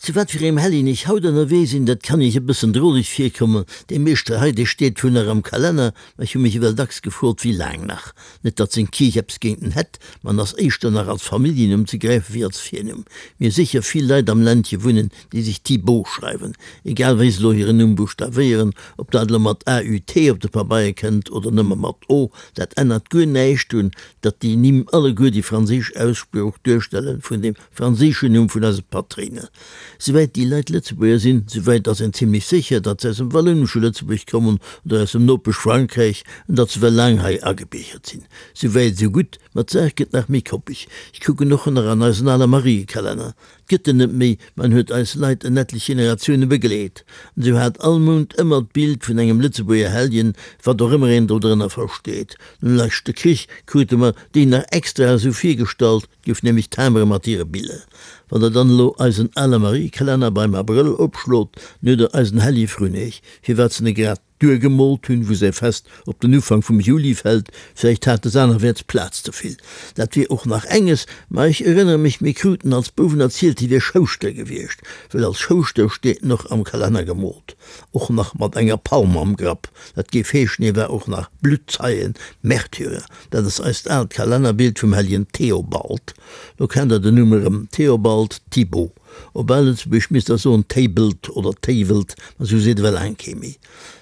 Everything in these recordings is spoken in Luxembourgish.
Zu wat fir engem Helljen ech haut ënnerwee sinn, dat kann Iech e bëssen droleg virkommen. Dee Meeschter hei, dee steet wuel nach am Kalenner, ma ech hu mech ewell dacks gefrot, wéi laang nach. Net, datt seng Kierch eppes géint en hätt, ma en ass éischter nach als Familljennumm ze gräife wéi als Virnumm. Mir hu sécher vill Leit am Ländche wunnen, déi sech Thibaut schreiwen, egal wéi se elo hiren Numm buschtawéieren, ob dat elo mat AUT op de Pabeier kënnt oder nëmme mat O, dat ännert guer näischt drun, datt déi Nimm alleguer déi franséisch Aussprooch duerstelle vun deem franséischen Numm vun eise Patréiner. Souwäit déi Leit Lëtzebuerger sinn, souwäit ass een zimlech sécher, datt se aus dem wallounesche Lëtzebuerg kommen oder aus dem Nopesch-Frankräich an datt se well laang hei agebiergert sinn. Souwäit esou gutt, ma d'Saach gëtt nach méi koppeg. Ech kucken och nach an eisen ale Mariekalenner. 't gëtt en net méi, ma en huet eis Leit en etlech Generatioune begleet. An esou hat all Mount ëmmer d'Bild vun engem Lëtzebuerger Heljen, wat och ëmmer een dodrënner versteet. Nom leschte Krich krute mer déi nach extra esou virgestallt. 't gouf nämlech Timbere mat hire Biller. Wann der dann elo eisen ale Mariekalenner beim Abrëll opschlot, dann huet der eisen Helli vrun iech. Firwat se ne grad duer gemoolt hunn, wou säi Fest op den Ufank vum Juli fält, vläicht hate se anerwäerts Plaz ze vill. Dat wier och nach enges, ma ech erënnere mech, mir kruten als Bouwen erzielt, hie wier Schouschter gewiescht, well als Schouschter steet en och am Kalenner gemoolt, och nach mat enger Palm am Grapp. Dat géif heeschen, hie war och nach Bluttzeien, Märtyrer. Dat ass eist aalt Kalennerbild vum helljen Theobald. Lo kennt der den Numm erëm, Theobald, Thibaut. Op al Lëtzebuergesch misst der soen Théibelt oder Théiwelt, ma sou seet ewell laang kee méi.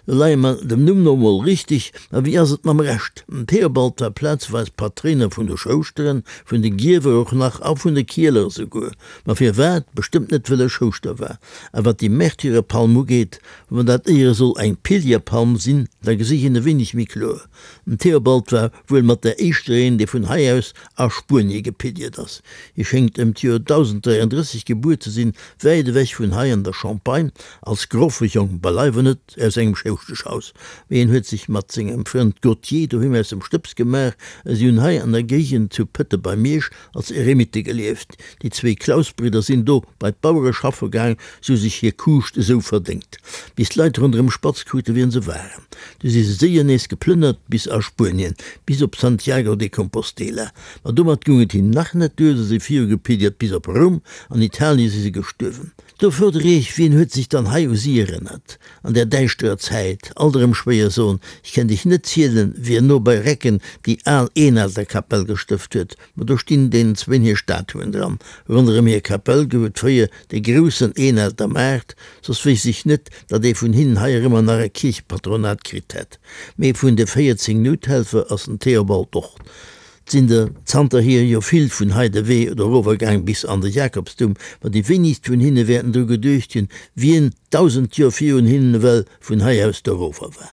Lo leie mer dem Numm no mol richteg, ma wéi ass et mam Rescht? Den Theobald war plazeweis Patréiner vun de Schouschteren, vun de Giewer och nach a vun de Kieler esouguer. Ma firwat? Bestëmmt net wëll e Schouschter war. A wat déi Märtyrerpalm ugeet, wann dat éiere soll eng Pilgerpalm sinn, da gesi ech en e wéineg méi kloer. Den Theobald war wuel mat der éischter een, dee vun hei aus a Spuenie gepilgert ass. Hie schéngt ëm d'Joer 1033 gebuer ze sinn, wäit ewech vun hei an der Champagne, als Groffejong, beileiwer net aus engem Schouschteschhaus, mee en huet sech mat sengem Frënd Gauthier doheem aus dem Stëbs gemaach a si hunn hei an der Géigend zu Pëtte bei Miersch als Eremite gelieft. Déi zwéi Clausbridder sinn do bei d'Bauere schaffe gaang, se hu sech hir Kuuscht esou verdéngt, bis d'Leit ronderëm spatz krute wien se waren. Du si se séier nees geplënnert bis a Spuenien, bis op Santiago de Compostela. Ma domat goung et hinnen nach net duer, se si virugepilgert bis op Roum, an Italie si se gestuerwen. Do frot der iech, Wien huet sech dann hei u si erënnert an där däischterer Zäit? Alt erëm schwéier soen, ech kennt iech net zielen, wien no bei Recken déi al Eenelterkapell gestëft huet, ma do stinn deenen zwéin hir Statuen dran. Ronderëm hir Kapell gouf et fréier de groussen Eeneltermaart, soss wéisst ech net, datt ee vun hinnen hei erëmmer nach e Kierchepatronat kritt hätt. Mee vun de 14 Nouthelfer ass den Theobald och. 't sinn der zanterhier jo vill vun hei de Wee erower gaang bis an de Jakobsdum, ma déi wéinigst vun hinne wäerten dru geduecht hunn, wien 1000 Joer virun hinnen ewell vun hei aus dorower war.